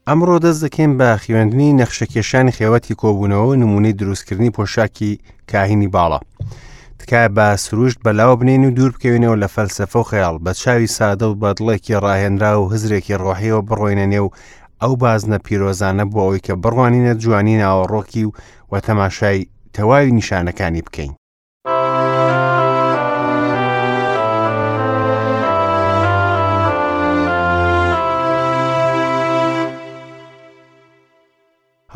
ئەمڕۆ دەست دەکەین بە خوێندنی نەخشەکێشانی خێوەتی کۆبوونەوە و نمونەی دروستکردنی پۆشاکی کاهینی باڵا. تکایە بە سروشت بەلاوە بنێین و دوور بکەوینەوە لە فەلسەفە و خەیاڵ، بە چاوی سادە و بە دڵێکی ڕاهێنراو و هزرێکی ڕۆحیەوە بڕۆینە نێو ئەو بازنە پیرۆزانە بۆ ئەوەی کە بڕوانینە جوانی ناوەڕۆکی و و تەماشای تەواوی نیشانەکانی بکەین.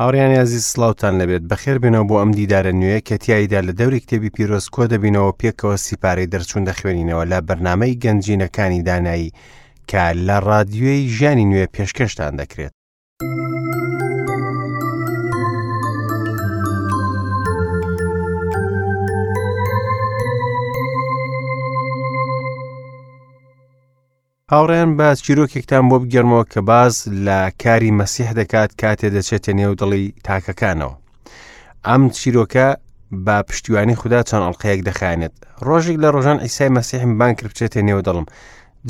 هاوڕیانی ئازیز سڵاوتان لەبێت بەخێر بێنەوە بۆ ئەم دیدارە نوێ کە تیایدا لە دەوری کتێبی پیرۆز کۆ دەبینەوە پێکەوە سیپارەی دەرچوون دەخوێنینەوە لە بەرنامەی گەنجینەکانی دانایی کە لە ڕادیۆی ژیانی نوێ پێشکەشتان دەکرێت. هاوڕێیان با چیرۆکێکتان بۆ بگێڕمەوە کە باس لە کاری مەسیح دەکات کاتێ دەچێتە نێو دڵی تاکەکانەوە. ئەم چیرۆکە بە پشتیوانی خودا چەند ئەڵلقەیەک دەخایەنێت. ڕۆژێک لە ڕۆژان ئیسای مەسیحم بانگ کرد بچێتە نێو دڵم.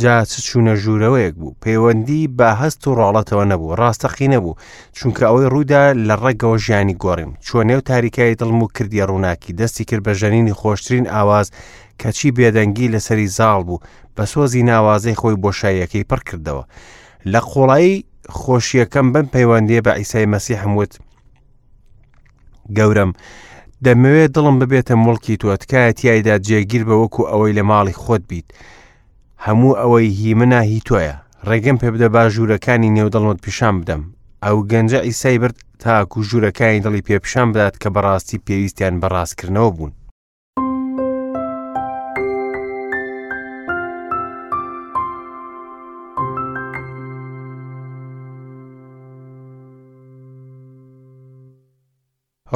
جا چ چوونە ژوورەوەیەک بوو پەیوەندی بە هەست و ڕاڵەتەوە نەبوو ڕاستەقی نەبوو چونکە ئەوەی ڕوودا لە ڕەگەوە ژیانی گۆڕیم چوە نێو تاریکایی دڵم و کردیە ڕووناکی دەستی کرد بە ژەنینی خۆشترین ئاواز کەچی بێدەنگی لەسەری زاڵ بوو بە سۆزی ناوازەی خۆی بۆشاییەکەی پڕ کردەوە لە قوڵایی خۆشیەکەم بەم پەیوەندیە بە ئیسای مەسیحم وت گەورەم دەمەوێت دڵم ببێتە موڵکی تۆ تکایە تیایدا جێگیر بە وەکو ئەوەی لە ماڵی خۆت بیت هەموو ئەوەی هی منە هی تۆیە ڕێگەم پێ بدە با ژوورەکانی نێو دڵمت پیشان بدەم ئەو گەنجە ئیسای برد تاکو ژوورەکانی دڵی پێ پیشان بدات کە بەڕاستی پێویستیان بە ڕاستکردنەوە بوون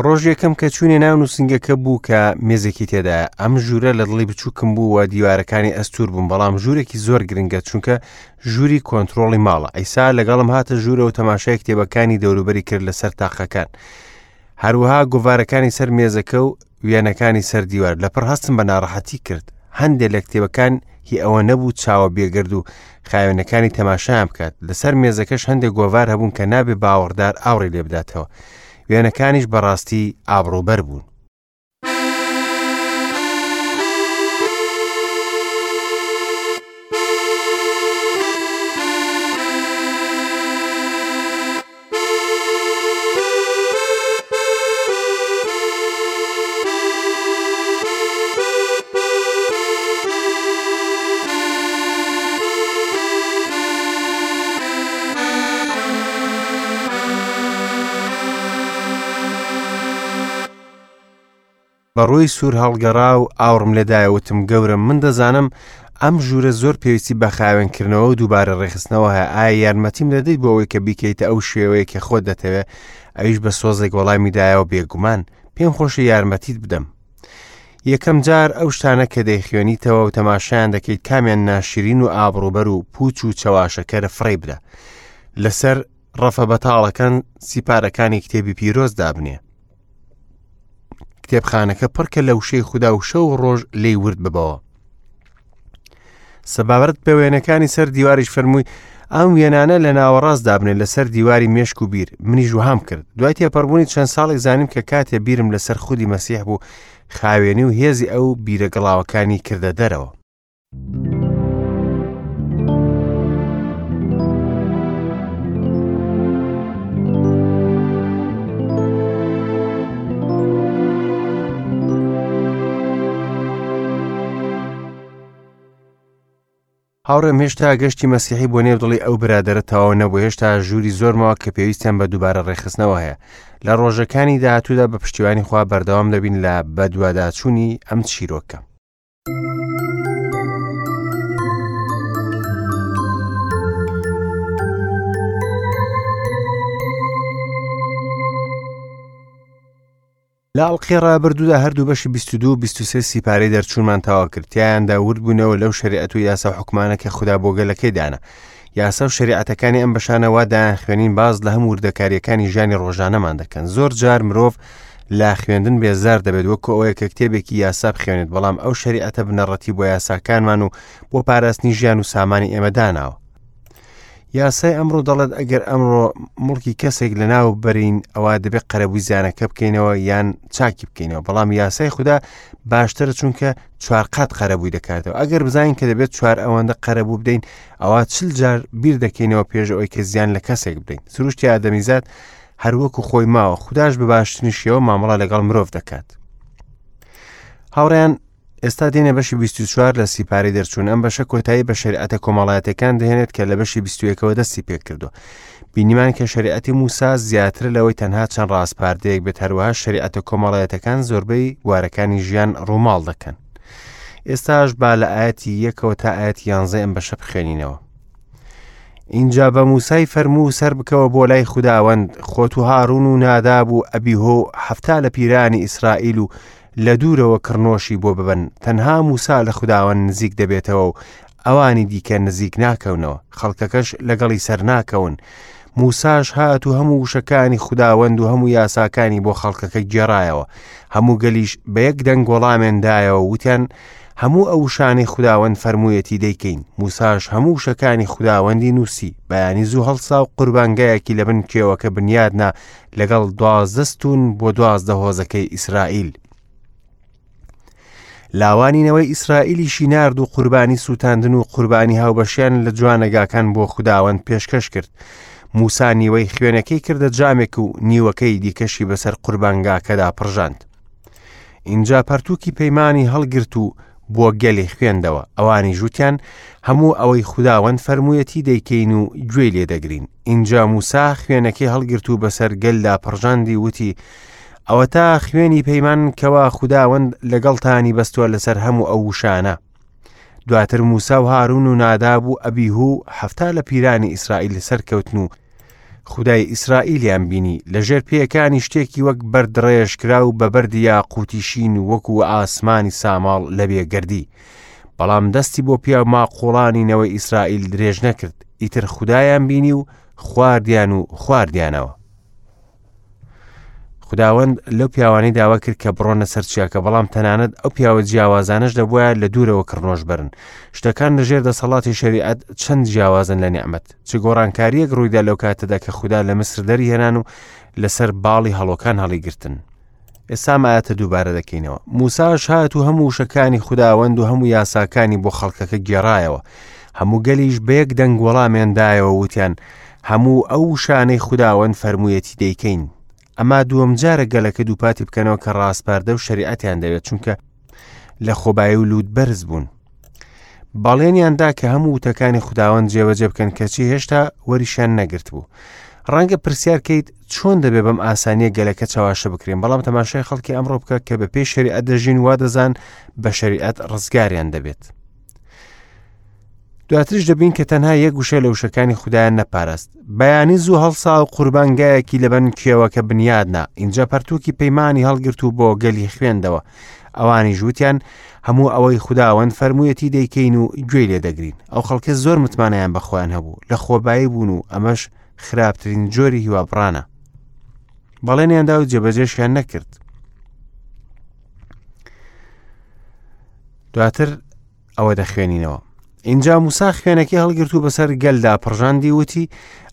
ڕۆژ یەکەم کە چوونە ناو نووسنگەکە بوو کە مێزێکی تێدایە ئەم ژوورە لە دڵی بچووکم بوو و دیوارەکانی ئەستور بوون بەڵام ژوورێکی زۆر گرنگە چونکە ژووری کۆنتترۆڵی ماڵە ئەیسا لەگەڵم هاتە ژوورە و تەماشای کتێبەکانی دەوروبەری کرد لەسەر تاقەکان هەروەها گۆڤارەکانی سەر مێزەکە و وێنەکانی سەر دیوار لەپڕ هەستم بە ناڕەحەتی کرد هەندێک لە کتێبەکان هی ئەوە نەبوو چاوە بێگرد و خاوێنەکانی تەماشایان بکات لەسەر مێزەکەش هەندێک گۆڤار هەبوون کە نابێ باوەڕدار ئاوڕی لێ بداتەوە وێنەکانیش بەڕاستی ئابڕووبەر بوون. بە ڕووی سوور هەڵگەڕا و ئاوڕم لێدایە وتم گەورەم من دەزانم ئەم ژوورە زۆر پێویستی بە خاوێنکردنەوە و دووبارە ڕێکخستنەوە هەیە ئایا یارمەتیم دەدەیت بۆ ئەوەی کە بیکەیتە ئەو شێوەیە کە خۆت دەتەوێ ئەویش بە سۆزێک وەڵامی دایەوە بێگومان پێم خۆشە یارمەتیت بدەم یەکەم جار ئەو شتانە کە دەیخوێنیتەوە و تەماشایان دەکەیت کامیان ناشرین و ئابڕوبەر و پوچ و چەواشەکەرە فڕێی بدە لەسەر ڕەفە بەتاڵەکان سیپارەکانی کتێبی پیرۆز دابنێ کتێبخانەکە پڕکە لە وشەی خودا و شەو و ڕۆژ لێی ورد ببەوە سەبارەت بە وێنەکانی سەر دیواریش فەرمووی ئەم وێنانە لە ناوەڕاست دابنێ لەسەر دیواری مێشک و بیر منیش وهام کرد دوای تێپەڕبوونی چەند ساڵێک زانیم کە کاتێ بیرم لەسەر خودی مەسیح بوو خاوێنی و هێزی ئەو بیرە گڵاوەکانی کردە دەرەوە هاوڕێم هێشتا گەشتی مەسیحی بۆ نێو دڵی ئەو برادەرە تەواو نەبوو هێشتا ژووری زۆرمەوە کە پێویستیان بە دووبارە ڕێکخستنەوە هەیە لە ڕۆژەکانی داهاتوودا بە پشتیوانی خوا بەردەوام دەبین لە بەدواداچوونی ئەم چیرۆکە. لە ئەڵقەی ڕابردوودا هەردوو بەشی 22 و 23 سیپارەی دەرچوونمان تەواو کرد تیایاندا ورد بوونەوە لەو شەریعەت و یاسا و حکومانە کە خودا بۆ گەلەکەی دانا یاسا و شەریعەتەکانی ئەم بەشانە وا دایان خوێنین باز لە هەموو وردەکاریەکانی ژیانی ڕۆژانەمان دەکەن زۆر جار مرۆڤ لە خوێندن بێزار دەبێت وەکو ئەوەیە کە کتێبێکی یاسا بخوێنێت بەڵام ئەو شەریعەتە بنەڕەتی بۆ یاساکانمان و بۆ پاراستنی ژیان و سامانی ئێمە داناوە. یاسای ئەمڕۆ دەڵێت ئەگەر ئەمڕۆ مڵکی کەسێک لە ناو بەرین ئەوە دەبێت قەرەبووی زیانەکە بکەینەوە یان چاکی بکەینەوە بەڵام یاسای خودا باشترە چونکە چوار قات قەرەبووی دەکاتەوە ئەگەر بزانین کە دەبێت چوار ئەوەندە قەرەبوو بدەین ئەوە چل جار بیر دەکەینەوە پێش ئەوەی کە زیان لە کەسێک بدەین سروشتی ئادەمیزاد هەروەکو خۆی ماوە خودداش بە باشترین شێوە مامەڵە لەگەڵ مرۆڤ دەکات هاوڕیان ئێستا دێنە بەشی 24 لە سیپارەی دەرچوون ئەم بەشە کۆتایی بە شریعەتە کۆمەڵایەتەکان دەهێنێت کە لە بەشی 21ەوە دەستی پێکردووە بینیمان کە شریعەتی موسا زیاتر لەوەی تەنها چەند ڕاسپاردەیەک بێت هەروەها شریعەتە کۆمەڵایەتەکان زۆربەی بوارەکانی ژیان ڕووماڵ دەکەن ئێستاش با لە ئاەتی یەکەوە تا ئاەتی یانزە ئەم بەشە بخوێنینەوە ئینجا بە موسای فەرموو سەربکەوە بۆ لای خوداوەند خۆت و هارون و ناداب و ئەبیهۆ و حەفتا لە پیرانی ئیسرائیل و لە دوورەوە کڕنۆشی بۆ ببەن، تەنها موسا لە خوداوەند نزیک دەبێتەوە و ئەوانی دیکە نزیک ناکەونەوە، خەڵکەکەش لەگەڵی سەرناکەون. موساش هات و هەموو وشەکانی خوداوەند و هەموو یاساکانی بۆ خەڵکەکە گێڕایەوە. هەموو گەلیش بە یەک دەنگ وەڵامیان دایەوە و وتیان، هەموو ئەو وشانەی خوداوەند فەرموویەتی دەیکەین. موساش هەموو وشەکانی خوداوەندی نووسی. بەیانی زوو هەڵسا و قوربانگایەکی لەبن کێوەکە بنیاد نا لەگەڵ 12 ستوون بۆ 12 هۆزەکەی ئیسرائیل. لاوانی نەوەی ئیسرائیلیشی نارد و قوربانی سووتاندن و قوربانی هاوبەشیان لە جوانەگاکان بۆ خوداوەند پێشکەش کرد. موسا نیوەی خوێنەکەی کردە جامێک و نیوەکەی دیکەشی بەسەر قوربانگاکەدا پڕژاند. ئینجا پەرتووکی پەیمانی هەڵگرت و بۆ گەلی خوێندەوە، ئەوانیش وتیان، هەموو ئەوەی خوداوەند فەرموویەتی دەیکەین و گوێی لێ دەگرین. ئینجا موسا خوێنەکەی هەڵگرت و بەسەر گەلدا پڕژاندی وتی، ئەوەتا خوێنی پەیمان کەوا خوداوەند لەگەڵتانی بەستووە لەسەر هەموو ئەو وشانە. دواتر موسا و هارون و ناداب و ئەبیهو و 70 لە پیرانی ئیسرائیل سەرکەوتن و خودای ئیسرائیلیان بینی لە ژێر پێیەکانی شتێکی وەک بەرد ڕێژکراو بە بەردی یاقوتی شین وەکو ئاسمانی ساماڵ لە بێگەردی بەڵام دەستی بۆ پیاو ماقوڵانی نەوەی ئیسرائیل درێژ نەکرد ئیتر خودایان بینی و خواردیان و خواردیانەوە خوداوەند لەو پیاوانەی داوا کرد کە بڕۆنە سەر چیاکە بەڵام تەنانەت ئەو پیاوە جیاوازانەش دەبواە لە دوورەوە کڕنۆش بەرن شتەکان لەژێر دەسەڵاتی شەریعەت چەند جیاوازن لە نیعمەت چ گۆڕانکاریەک ڕوویدا لەو کاتەدا کە خودا لە میسر دەریهێنان و لەسەر باڵی هەڵۆکان هەڵیگرتن ئێستا ئەم ئایەتە دووبارە دەکەینەوە موساش هات و هەموو وشەکانی خوداوەند و هەموو یاساکانی بۆ خەڵکەکە گێڕایەوە هەموو گەلیش بە یەک دەنگ وەڵامیان دایەوە وتیان هەموو ئەو وشانەی خوداوەند فەرموویەتی دەیکەین ئەما دووەم جارە گەلەکە دووپاتی بکەنەوە کە ڕاسپاردە و شەریعەتیان دەوێت چونکە لە خۆبایی و لووت بەرز بوون بەڵێنیان دا کە هەموو وتەکانی خوداوەند جێبەجێ بکەن کەچی هێشتا وەریشیان نەگرت بوو. ڕەنگە پرسیار کەیت چۆن دەبێ بەم ئاسانیە گەلەکە چەواشە بکرێن بەڵام تەماشای خەڵکی ئەمڕۆ بکە کە بە پێی شەریعەت دەژین وا دەزان بە شەریعەت ڕزگاریان دەبێت. دواترش دەبین کە تەنها یەک وشە لە وشەکانی خودایان نەپاراست بەیانی زوو هەڵسا و قوربانگایەکی لەبن کێوەکە بنیادنا ئینجا پەرتووکی پەیمانی هەڵگرت و بۆ گەلی خوێندەوە ئەوانیش وتیان هەموو ئەوەی خوداوەند فەرموویەتی دەیکەین و گوێی لێ دەگرین ئەو خەڵکە زۆر متمانەیان بە خۆیان هەبوو لە خۆبایی بوون و ئەمەش خراپترین جۆری هیوابڕانە بەڵێنیاندا و جێبەجێشیان نەکرد دواتر ئەوە دەخوێنینەوە اینجا موسا خوێنەکەی هەڵگرت و بەسەر گەلدا پڕژاندی وتی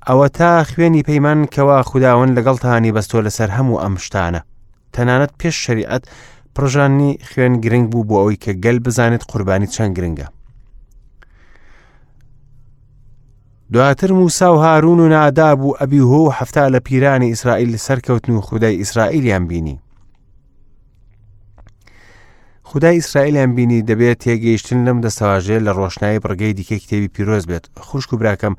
ئەوە تا خوێنی پەیمان کەوا خوداوەند لەگەڵتانی بەستۆ لەسەر هەموو ئەم شتانە تەنانەت پێش شەریعەت پڕژانی خوێن گرنگ بوو بۆ ئەوەی کە گەل بزانێت قوربانی چەند گرنگە دواتر موسا و هارون و ناداب و ئەبیهۆ و حەفتا لە پیرانی ئیسرائیل سەرکەوتن و خودای ئیسرائیلیان بینی خودای ئیسرائیلیان بینی دەبێت تێگەیشتن لەم دەستەواژەیە لە ڕۆشنایی بڕگەی دیکەی کتێبی پیرۆز بێت خوشک و براکەم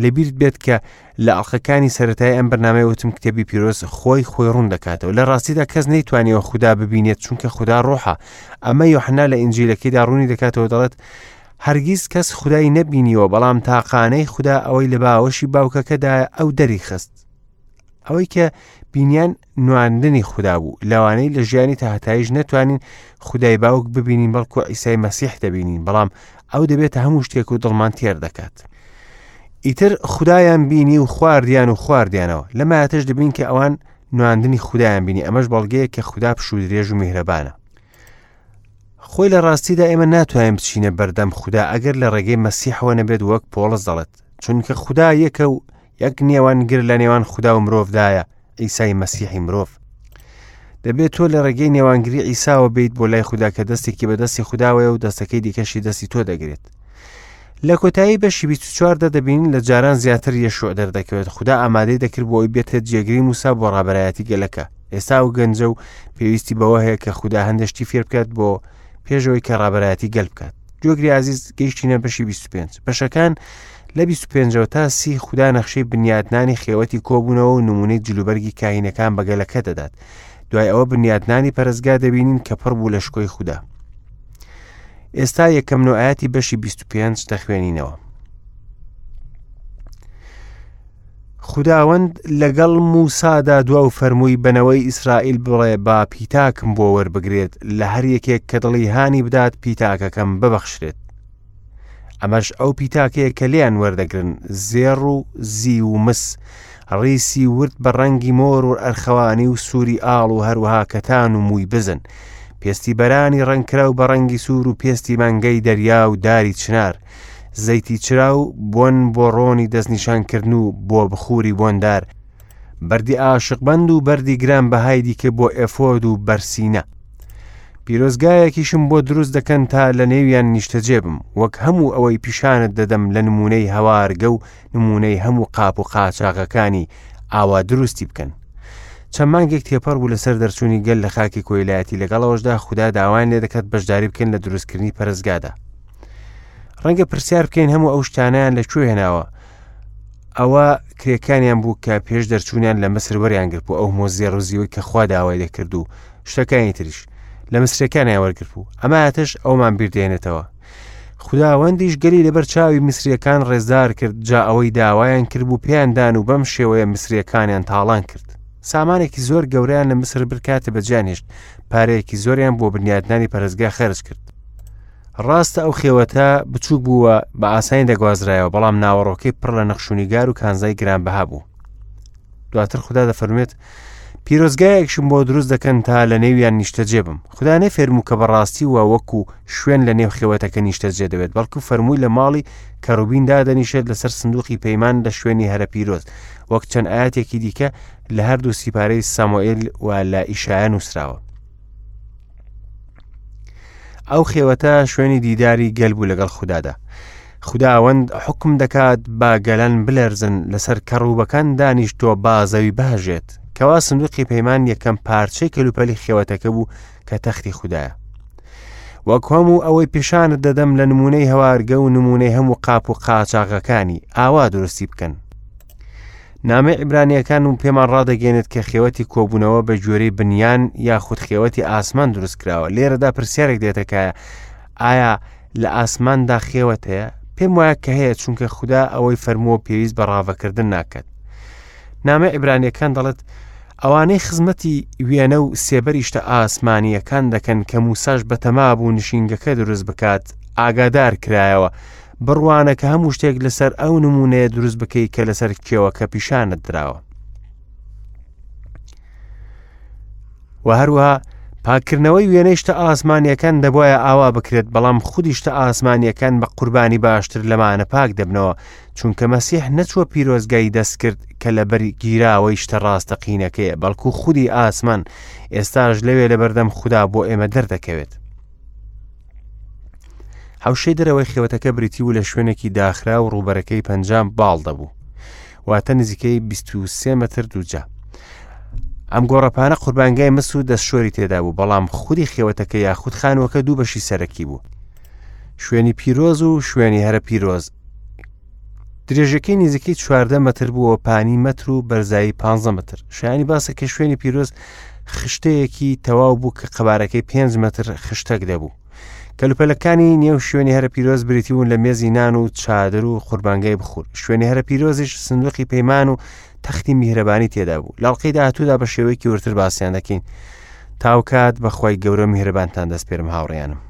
لەبیرت بێت کە لە ئەڵلقەکانی سەتای ئەم بەرنامەی وتم کتێبی پیرۆز خۆی خۆی ڕوون دەکاتەوە لە ڕاستیدا کەس نەیتوانیەوە خودا ببینێت چونکە خودا ڕۆحە ئەمە یۆحنا لە ئینجیلەکەیدا ڕوونی دەکاتەوە دەڵێت هەرگیز کەس خودای نەبینیوە بەڵام تاقانەی خودا ئەوەی لە باوەشی باوکەکەدا ئەو دەری خست ئەوەی کە بینیان نواندنی خودا بوو لەوانەی لە ژیانی تاهتایش نەتوانین خودای باوک ببینین بەڵکو ئیسای مەسیح دەبینین بەڵام ئەو دەبێتە هەموو شتێک و دڵمان تێر دەکات ئیتر خودایان بینی و خواردیان و خواردیانەوە لە مایەتش دەبین کە ئەوان نواندنی خودایان بینی ئەمەش بەڵگەیە کە خودا پشوو درێژ و میهرەبانە خۆی لە ڕاستیدا ئێمە ناتوانین بچینە بەردەم خودا ئەگەر لە ڕێگەی مەسیحەوە نەبێت وەک پۆڵس دەڵێت. چونکە خودا یەکە و یەک نێوانگر لە نێوان خودا و مرۆڤدایە، عیسای مەسیحی مرۆڤ. دەبێت تۆ لە ڕێگەی نێوانگری عیساوە بیت بۆ لای خودا کە دەستێکی بە دەستی خوداوەیە و دەستەکەی دیکەشی دەستی تۆ دەگرێت. لە کۆتایی بەشی 24 دا دەبینین لە جاران زیاتر یەشوع دەردەکەوێت خودا ئامادەی دەکرد بۆ ئەوی بێتە جێگری موسا بۆ ڕابەرایەتی گەلەکە ئێستا ئەو گەنجە و پێویستی بەوە هەیە کە خودا هەندێک شتی فێر بکات بۆ پێشەوەی کە ڕابەرایەتی گەل بکات گوێگری ئازیز گەیشتینە بەشی 25 بەشەکان لە 25ەوە تا سی خودا نەخشەی بنیادنانی خێوەتی کۆبوونەوە و نمونەی جلوبەرگی کاهینەکان بە گەلەکە دەدات دوای ئەوە بنیادنانی پەرستگا دەبینین کە پڕ بوو لە شکۆی خودا ئێستا یەکەم نوعاتی بەشی 25 دەخوێنینەوە خوداوەند لەگەڵ موسادا دوا و فەرمووی بەنەوەی ئیسرائیل بڵێ با پیتاکم بۆ وەربگرێت لە هەر یەکێک کە دڵی هانی بدات پیتاکەکەم ببەخشرێت ئەمەش ئەو پیتاکەیە کە لێیان وەردەگرن زێڕ و زیو و مس ڕیسی ورد بە ڕەنگی مۆر و ئەرخەوانی و سووری ئاڵ و هەروەها کەتان و مووی بزن پێستی بەرانی ڕەنگکراو بە ڕەنگی سوور و پێستی مانگەی دەریا و داری چنار زەیتی چرا و بۆن بۆ ڕۆنی دەستنیشانکردن و بۆ بخوری بۆندار بەردی ئاشقبەند و بەردی گران بەهای دیکە بۆ ئێفۆد و بەرسینە پیرۆزگایەکیشم بۆ دروست دەکەن تا لە نێویان نیشتەجێ بم وەک هەموو ئەوەی پیشانت دەدەم لە نمونەی هەوارگە و نمونەی هەموو قاپ و قاچاغەکانی ئاوا دروستی بکەن چەند مانگێک تێپەڕ بوو لەسەر دەرچوونی گەل لە خاکی کۆیلایەتی لەگەڵەوەشدا خودا داوایان لێ دەکات بەشداری بکەن لە دروستکردنی پەرستگادا ڕەنگە پرسیار بکەین هەموو ئەو شتانیان لە کوێ هێناوە ئەوە کرێکانیان بوو کە پێش دەرچوونیان لە مسر وەریان گرت بوو ئەو مۆزیە ڕزیوەی کە خوا داوای دەکرد و شتەکانی تریش لە مسرەکانیان وەرگرت بوو ئەمە ئاتەش ئەومان بیردێنێتەوە خوداوەندیش گەلی لەبەر چاوی میسریەکان ڕێزدار کرد جا ئەوەی داوایان کرد بوو پێیان دان و بەم شێوەیە میسریەکانیان تاڵان کرد سامانێکی زۆر گەورەیان لە میسر برکاتە بەجیان هێشت پارەیەکی زۆریان بۆ بنیادنانی پەرستگا خەرج کرد ڕاستە ئەو خێوەتە بچووک بووە بە ئاسانی دەگوازرایەوە بەڵام ناوەڕۆکەی پڕ لە نەخشونیگار و کانزای گرانبەها بوو دواتر خودا دەفەرموێت پیرۆزگایەکشم بۆ دروست دەکەن تا لە نێویان نیشتەجێ بم خودا نەفەرموو کە بەڕاستی وە وەکو شوێن لە نێو خێوەتەکە نیشتەجێ دەبێت بەڵکو فەرمووی لە ماڵی کەڕوبین دادەنیشێت لەسەر سندوقی پەیمان لە شوێنی هەرە پیرۆز وەک چەند ئاەتێکی دیکە لە هەردوو سیپارەی سامۆئێل و لە ئیشایە نووسراوە ئەو خێوەتە شوێنی دیداری گەل بوو لەگەڵ خوددادا خوداوەند حکم دەکات با گەلان بلەرزن لەسەر کەڕوبەکان دانیشتووە با زەوی بهەژێت کەوا سندوقی پەیمان یەکەم پارچەی کەلوپەلی خێوەتەکە بوو کە تەختی خودایە وەک هەموو ئەوەی پیشانت دەدەم لە نمونەی هەوارگە و نمونەی هەموو قاپ و قاچاغەکانی ئاوا دروستی بکەن نامەی عیبرانییەکان و پێمان ڕادەگەێنێت کە خێوەتی کۆبوونەوە بە گوێرەی بنیان یاخود خێوەتی ئاسمان دروست کراوە لێرەدا پرسیارێک دێتەکایە ئایا لە ئاسماندا خێوەت هەیە پێم وایە کە هەیە چونکە خودا ئەوەی فەرمووە پێویست بە ڕاڤەکردن ناکات نامە عیبرانیەکان دەڵێت ئەوانەی خزمەتی وێنە و سێبەری شتە ئاسمانییەکان دەکەن کە موساش بەتەما بوو نشینگەکە دروست بکات ئاگادار کرایەوە بڕوانە کە هەموو شتێک لەسەر ئەو نمونەیە دروست بکەی کە لەسەر کێوەکە پیشانت دراوە و هەروەها پاکردنەوەی وێنەی شتە ئاسمانیەکان دەبواە ئاوا بکرێت بەڵام خودی شتە ئاسمانیەکان بە قوربانی باشتر لەمانە پاک دەبنەوە چونکە مەسیح نەچووە پیرۆزگای دەستکرد کە لەبەر گیراوەی شتە ڕاستەقینەکەیە بەڵکو خودی ئاسمان ئێستاش لەوێ لەبەردەم خودا بۆ ئێمە دەردەکەوێت حەوشەی دەرەوەی خێوەتەکە بریتی بوو لە شوێنێکی داخرا و ڕووبەرەکەی 50 باڵ دەبوو واتە نزیکەی 23 متر دووجا ئەم گۆڕەپانە قوربانگای مس و دەستشۆری تێدا بوو بەڵام خودی خێوەتەکە یاخود خانووەکە دوو بەشی سەرەکی بوو شوێنی پیرۆز و شوێنی هەرە پیرۆز درێژەکەی نزیکەی 14 متر بووە پانی مەتر و بەرزایی 15 متر شایانی باسە کە شوێنی پیرۆز خشتەیەکی تەواو بوو کە قەبارەکەی 5 متر خشتەک دەبوو کەلوپەلەکانی نێو شوێنی هەرە پیرۆز بریتی بوون لە مێزی نان و چادر و قوربانگای بخور شوێنی هەرە پیرۆزیش سندوقی پەیمان و تەختی میهرەبانی تێدا بوو لاڵقەی داهاتوودا بە شێوەیەکی ورتر باسییان دەکەین تاوکات بەخوای گەورە میهرەبانتان دەستپێرم هاوڕیانم.